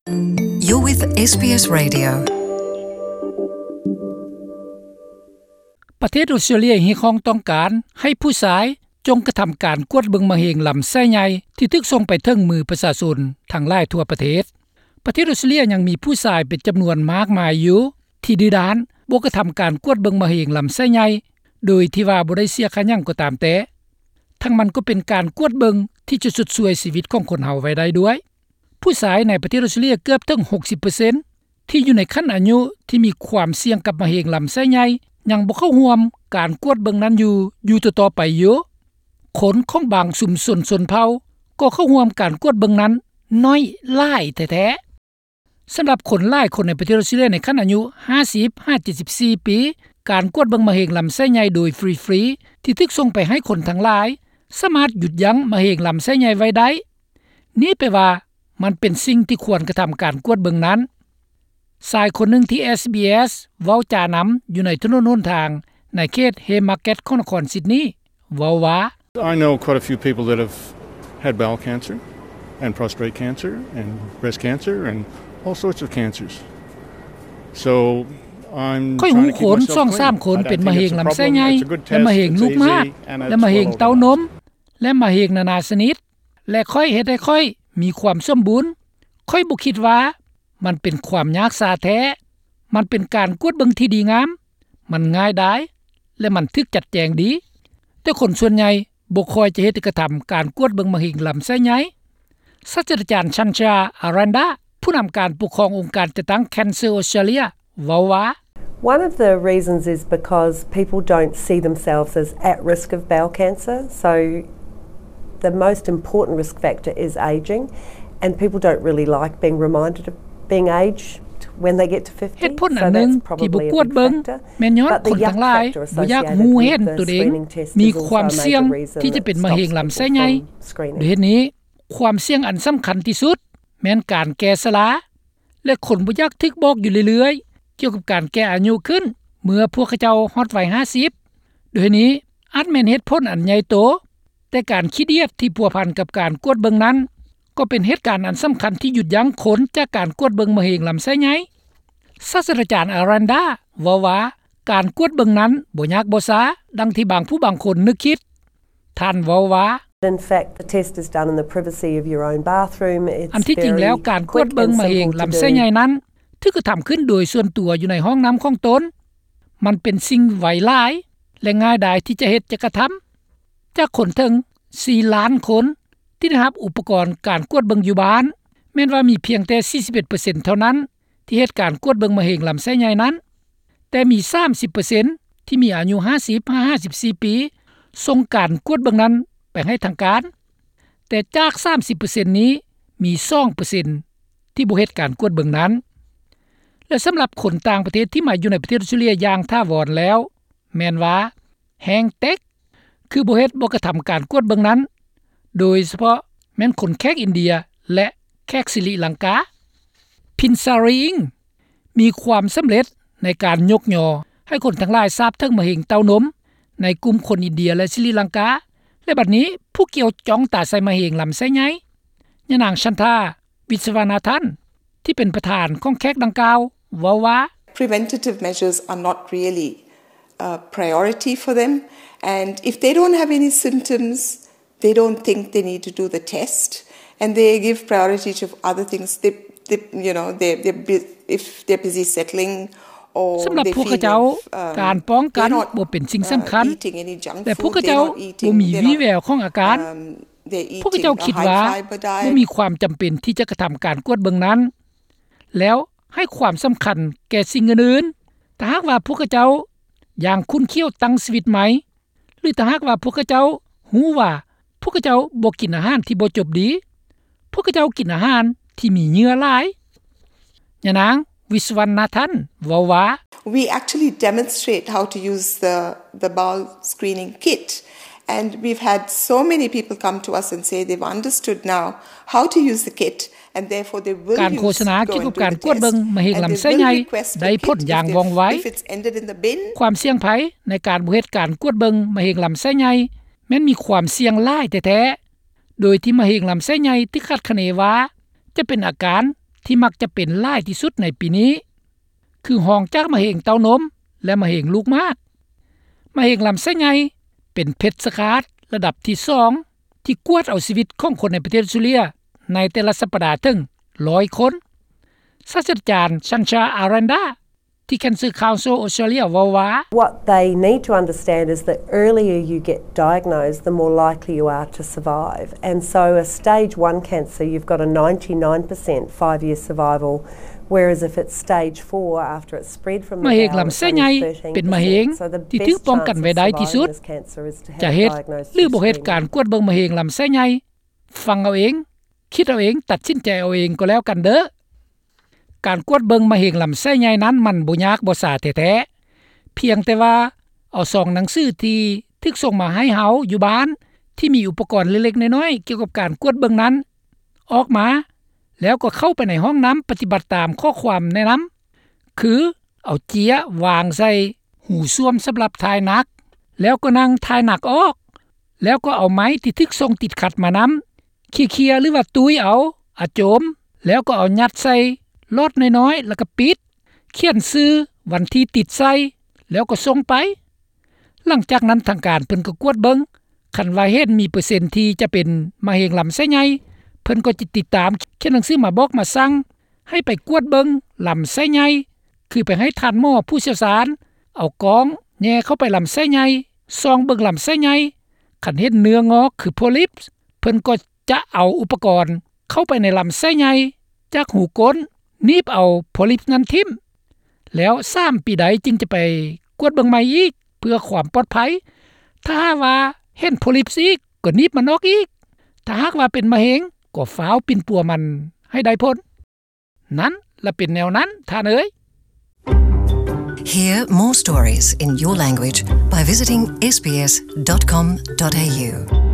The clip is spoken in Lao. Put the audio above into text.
You're with ເອສບີເອສ Radio. ປະເທດອົດສະຕຣາເລຍຮຽກຮ້ອງຕ້ອງການໃຫ້ຜູ້ຊາຍຈົ່ງກະທຳການກວດເບິ່ງມະເຮັງລຳໄສ້ໃຫຍ່ ທີ່ຖືກສົ່ງໄປເຖິງມືປະຊາຊົນທັງຫຼາຍທົ່ວປະເທດ. ປະເທດອົດສະຕຣາເລຍຍັງມີຜູ້ຊາຍເປັນຈຳນວນມາກມາຍຢູ່ ທີ່ດື້ດ້ານບໍ່ກະທຳການກວດເບິ່ງມະເຮັງລຳໄສ້ໃຫຍ່ ໂດຍທີ່ວ່າບໍ່ໄດ້ເສຍຄ່າຫຍັງກໍຕາມແຕ່. ທັງມັນກໍເປັນການກວດເບິ່ງທີ່ຈະຊົດຊ່ວຍຊີວິດຂອງຄົນເຮົາໄວ້ໄດ້ດ້ວຍ. ຜູ້ຊາຍໃນປະເທດອົດສະຕຣາເລຍເກືອບເຖິງຫົກສິບເປີເຊັນ ທີ່ຢູ່ໃນຂັ້ນອາຍຸທີ່ມີຄວາມສ່ຽງກັບມະເຮັງລຳໄສ້ໃຫຍ່ ຍັງບໍ່ເຂົ້າຮ່ວມການກວດເບິ່ງນັ້ນຢູ່ ຢູ່ຕໍ່ໆໄປຢູ່. ຄົນຂອງບາງຊຸມຊົນຊົນເຜົ່າກໍເຂົ້າຮ່ວມການກວດເບິ່ງນັ້ນໜ້ອຍຫຼາຍແທ້ໆ. ສຳລັບຄົນຫຼາຍຄົນໃນປະເທດອົດສະຕຣາເລຍໃນຂັ້ນອາຍຸຫ້າສິບຫາເຈັດສິບສີ່ປີ ການກວດເບິ່ງມະເຮັງລຳໄສ້ໃຫຍ່ໂດຍຟຣີໆ ທີ່ຖືກສົ່ງໄປໃຫ້ຄົນທັງຫຼາຍ ສາມາດຢຸດຢັ້ງມະເຮັງລຳໄສ້ໃຫຍ່ໄວ້ໄດ້. ນີ້ແປວ່າມັນເປັນສິ່ງທີ່ຄວນກະທຳການກວດເບິ່ງນັ້ນ. ຊາຍຄົນໜຶ່ງທີ່ ເອສບີເອສ ເວົ້າຈານຳຢູ່ໃນຖະໜົນຫົນທາງໃນເຂດ Haymarket ຂອງນະຄອນຊິດນີ ເວົ້າວ່າ I know quite a few people that have had bowel cancer and prostate cancer and breast cancer and all sorts of cancers. So I'm ຂ້ອຍຮູ້ຄົນສອງສາມຄົນເປັນມະເຮັງລຳໄສ້ໃຫຍ່ ແລະມະເຮັງລູກໝາກ ແລະມະເຮັງເຕົ້ານົມ ແລະມະເຮັງນານາຊະນິດ ແລະຂ້ອຍເຮັດໃຫ້ຂ້ອຍມີຄວາມສົມບູນ. ຂ້ອຍບໍ່ຄິດວ່າມັນເປັນຄວາມຍາກຊາແທ້. ມັນເປັນການກວດເບິ່ງທີ່ດີງາມ, ມັນງ່າຍດາຍ ແລະມັນຖືກຈັດແຈງດີ. ແຕ່ຄົນສ່ວນໃຫຍ່ບໍ່ຄ່ອຍຈະເຮັດກະທຳການກວດເບິ່ງມະເຮັງລຳໄສ້ໃຫຍ່. ສາດສະດາຈານ Chandra Aranda ຜູ້ນຳການປົກຄອງອົງການຈັດຕັ້ງ Cancer Australia ເວົ້າວ່າ One of the reasons is because people don't see themselves as at risk of bowel cancer. So the most important risk factor is aging, and people don't really like being reminded of being aged when they get to fifty. ເຫດຜົນອັນໜຶ່ງທີ່ບໍ່ກວດເບິ່ງ ແມ່ນຍ້ອນຄົນທັງຫຼາຍບໍ່ຢາກຮູ້ເຫັນຕົນເອງມີຄວາມສ່ຽງທີ່ຈະເປັນມະເຮັງລຳໄສ້ໃຫຍ່. ດ້ວຍເຫດນີ້, ຄວາມສ່ຽງອັນສຳຄັນທີ່ສຸດແມ່ນການແກ່ຊະລາ ແລະຄົນບໍ່ຢາກຖືກບອກຢູ່ເລື້ອຍໆກ່ຽວກັບການແກ່ອາຍຸຂຶ້ນເມື່ອພວກເຂົາເຈົ້າຮອດໄວຫ້າສິບ. ດ້ວຍນີ້ອາດແມ່ນເຫດຜົນອັນໃຫຍ່ໂຕ, ແຕ່ການຂີ້ດຽດທີ່ພົວພັນກັບການກວດເບິ່ງນັ້ນ ກໍເປັນເຫດການອັນສຳຄັນທີ່ຢຸດຢັ້ງຄົນຈາກການກວດເບິ່ງມະເຮັງລຳໄສ້ໃຫຍ່. ສາດສະດາຈານ Aranda ເວົ້າວ່າ ການກວດເບິ່ງນັ້ນບໍ່ຍາກບໍ່ຊ້າ ດັ່ງທີ່ບາງຜູ້ບາງຄົນນຶກຄິດ. ທ່ານເວົ້າວ່າ In fact, the test is done in the privacy of your own bathroom. ອັນທີ່ຈິງແລ້ວ ການກວດເບິ່ງມະເຮັງລຳໄສ້ໃຫຍ່ນັ້ນ ຖືກກະທຳຂຶ້ນໂດຍສ່ວນຕົວຢູ່ໃນຫ້ອງນ້ຳຂອງຕົນ. ມັນເປັນສິ່ງໄວຫຼາຍ ແລະງ່າຍດາຍທີ່ຈະເຮັດຈະກະທຳ. ຈາກຄົນເຖິງສີ່ລ້ານຄົນທີ່ໄດ້ຮັບອຸປະກອນການກວດເບິ່ງຢູ່ບ້ານ, ແມ່ນວ່າມີພຽງແຕ່ສີ່ສິບເອັດເປີເຊັນເທົ່ານັ້ນ ທີ່ເຮັດການກວດເບິ່ງມະເຮັງລຳໄສ້ໃຫຍ່ນັ້ນ, ແຕ່ມີສາມສິບເປີເຊັນທີ່ມີອາຍຸຫ້າສິບຫາຫ້າສິບສີ່ປີ ສົ່ງການກວດເບິ່ງນັ້ນໄປໃຫ້ທາງການ. ແຕ່ຈາກສາມສິບເປີເຊັນນີ້ ມີສອງເປີເຊັນທີ່ບໍ່ເຮັດການກວດເບິ່ງນັ້ນ. ແລະສຳລັບຄົນຕ່າງປະເທດທີ່ມາຢູ່ໃນປະເທດອອສເຕຣເລຍຢ່າງຖາວອນແລ້ວ ແມ່ນວ່າ ແຮງເຕັກ ຄືບໍ່ເຮັດບໍ່ກະທຳການກວດເບິ່ງນັ້ນ, ໂດຍສະເພາະແມ່ນຄົນແຂກອິນເດຍ ແລະແຂກສິລິລັງກາ. Pinsari Ing ມີຄວາມສຳເລັດໃນການຍົກຍໍໃຫ້ຄົນທັງຫຼາຍຊາບເຖິງມະເຮັງເຕົ້ານົມໃນກຸ່ມຄົນອິນເດຍ ແລະສິລິລັງກາ, ແລະບັດນີ້ຜູ້ກ່ຽວຈ້ອງຕາໃສ່ມະເຮັງລຳໄສ້ໃຫຍ່. ຍານາງ Shantha Viswanathan ທີ່ເປັນປະທານຂອງແຂກດັ່ງກ່າວ ເວົ້າວ່າ Preventative measures are not really a priority for them, and if they don't have any symptoms, they don't think they need to do the test, and they give priority to other things. They, they, you know, they, they, if they're busy settling or ສຳລັບພວກເຂົາເຈົ້າ, ການປ້ອງກັນບໍ່ເປັນສິ່ງສຳຄັນ ແລະພວກເຂົາເຈົ້າບໍ່ມີວີ່ແວວຂອງອາການ. ພວກເຂົາເຈົ້າຄິດວ່າບໍ່ມີຄວາມຈຳເປັນທີ່ຈະກະທຳການກວດເບິ່ງນັ້ນ ແລ້ວໃຫ້ຄວາມສຳຄັນແກ່ສິ່ງອື່ນໆ. ຖ້າຫາກວ່າພວກເຂົາເຈົ້າຢ່າງຂຸ້ນຂ້ຽວຕັ້ງຊີວິດໃໝ່ ຫຼື ຖ້າຫາກວ່າພວກເຂົາເຈົ້າຮູ້ວ່າພວກເຂົາເຈົ້າບໍ່ກິນອາຫານທີ່ບໍ່ຈົບດີ, ພວກເຂົາເຈົ້າກິນອາຫານທີ່ມີເຫຍື່ອຫຼາຍ. ຍານາງ Viswanathan ເວົ້າວ່າ We actually demonstrate how to use the, the bowel screening kit, and we've had so many people come to us and say they've understood now how to use the kit, and therefore they will use, ການໂຄສະນາກ່ຽວກັບການກວດເບິ່ງມະເຮັງລຳໄສ້ໃຫຍ່ໄດ້ຜົນຢ່າງວ່ອງໄວ. ຄວາມສ່ຽງໄພໃນການບໍ່ເຮັດການກວດເບິ່ງມະເຮັງລຳໄສ້ໃຫຍ່ແມ່ນມີຄວາມສ່ຽງຫຼາຍແທ້ໆ, ໂດຍທີ່ມະເຮັງລຳໄສ້ໃຫຍ່ທີ່ຄາດຄະເນວ່າຈະເປັນອາການ ທີ່ມັກຈະເປັນຫຼາຍທີ່ສຸດໃນປີນີ້ ຄືຮອງຈາກມະເຮັງເຕົ້ານົມ ແລະ ມະເຮັງລູກໝາກ. ມະເຮັງລຳໄສ້ໃຫຍ່ເປັນເພັດຊະຄາດລະດັບທີສອງ ທີ່ກວດເອົາຊີວິດຂອງຄົນໃນປະເທດອອສເຕຣເລັຽໃນແຕ່ລະສັບປະດາເຖິງຮ້ອຍຄົນ. ສາດສະດາຈານ ຊັນຊາ ອາແຣນດາ ທີ່ Cancer Council Australia ເວົ້າວ່າ What they need to understand is the earlier you get diagnosed, the more likely you are to survive. And so a stage one cancer, you've got a ninety-nine percent five-year survival, whereas if it's stage four, after it's spread from the bowel, it's only thirteen percent. ມະເຮັງລຳໄສ້ໃຫຍ່ເປັນມະເຮັງທີ່ຖືກປ້ອງກັນໄວ້ໄດ້ທີ່ສຸດ. ຈະເຮັດ ຫຼື ບໍ່ເຮັດການກວດເບິ່ງມະເຮັງລຳໄສ້ໃຫຍ່ ຟັງເອົາເອງ, ຄິດເອົາເອງ, ຕັດສິນໃຈເອົາເອງກໍແລ້ວກັນເດີ້. ການກວດເບິ່ງມະເຮັງລຳໄສ້ໃຫຍ່ນັ້ນມັນບໍ່ຍາກບໍ່ຊາແທ້ໆ, ພຽງແຕ່ວ່າເອົາຊອງໜັງສືທີ່ຖືກສົ່ງມາໃຫ້ເຮົາຢູ່ບ້ານ ທີ່ມີອຸປະກອນເລັກໆນ້ອຍໆກ່ຽວກັບການກວດເບິ່ງນັ້ນອອກມາ, ແລ້ວກໍເຂົ້າໄປໃນຫ້ອງນ້ຳປະຕິບັດຕາມຂໍ້ຄວາມແນະນຳ ຄື ເອົາເຈ້ຍວາງໃສ່ຮູສ້ວມສຳລັບຖ່າຍໜັກ ແລ້ວກໍນັ່ງຖ່າຍໜັກອອກ, ແລ້ວກໍເອົາໄມ້ທີ່ຖືກສົ່ງຕິດຂັດມານຳ ເຄຍໆ ຫຼືວ່າຕຸ້ຍເອົາອາໂຈມ, ແລ້ວກໍເອົາຍັດໃສ່ຫຼອດນ້ອຍໆ ແລ້ວກໍປິດ, ຂຽນຊື່ວັນທີຕິດໃສ່ ແລ້ວກໍສົ່ງໄປ. ຫຼັງຈາກນັ້ນທາງການເພິ່ນກໍກວດເບິ່ງ, ຄັນວ່າເຫັນມີເປີເຊັນທີ່ຈະເປັນມະເຮັງລຳໄສ້ໃຫຍ່ ເພິ່ນກໍຈະຕິດຕາມ ຂຽນໜັງສືມາບອກມາສັ່ງ ໃຫ້ໄປກວດເບິ່ງລຳໄສ້ໃຫຍ່ ຄືໄປໃຫ້ທ່ານໝໍຜູ້ຊ່ຽວຊານເອົາກ້ອງແຍ່ເຂົ້າໄປລຳໄສ້ໃຫຍ່ ສ່ອງເບິ່ງລຳໄສ້ໃຫຍ່. ຄັນເຫັນເນື້ອງອກຄືໂພລິບ ເພິ່ນກໍຈະເອົາອຸປະກອນເຂົ້າໄປໃນລຳໄສ້ໃຫຍ່ ຈາກຮູກົ້ນ ໜີບເອົາໂພລິບນັ້ນຖິ້ມ ແລ້ວສາມປີໃດຈຶ່ງຈະໄປກວດເບິ່ງໃໝ່ອີກ ເພື່ອຄວາມປອດໄພ. ຖ້າຫາກວ່າເຫັນໂພລິບອີກ ກໍໜີບມັນອອກອີກ. ຖ້າຫາກວ່າເປັນມະເຮັງ ກໍຟ້າວປິ່ນປົວມັນໃຫ້ໄດ້ຜົນ. ນັ້ນລະເປັນແນວນັ້ນທ່ານເອີຍ. Hear more stories in your language by visiting S B S dot com dot A U.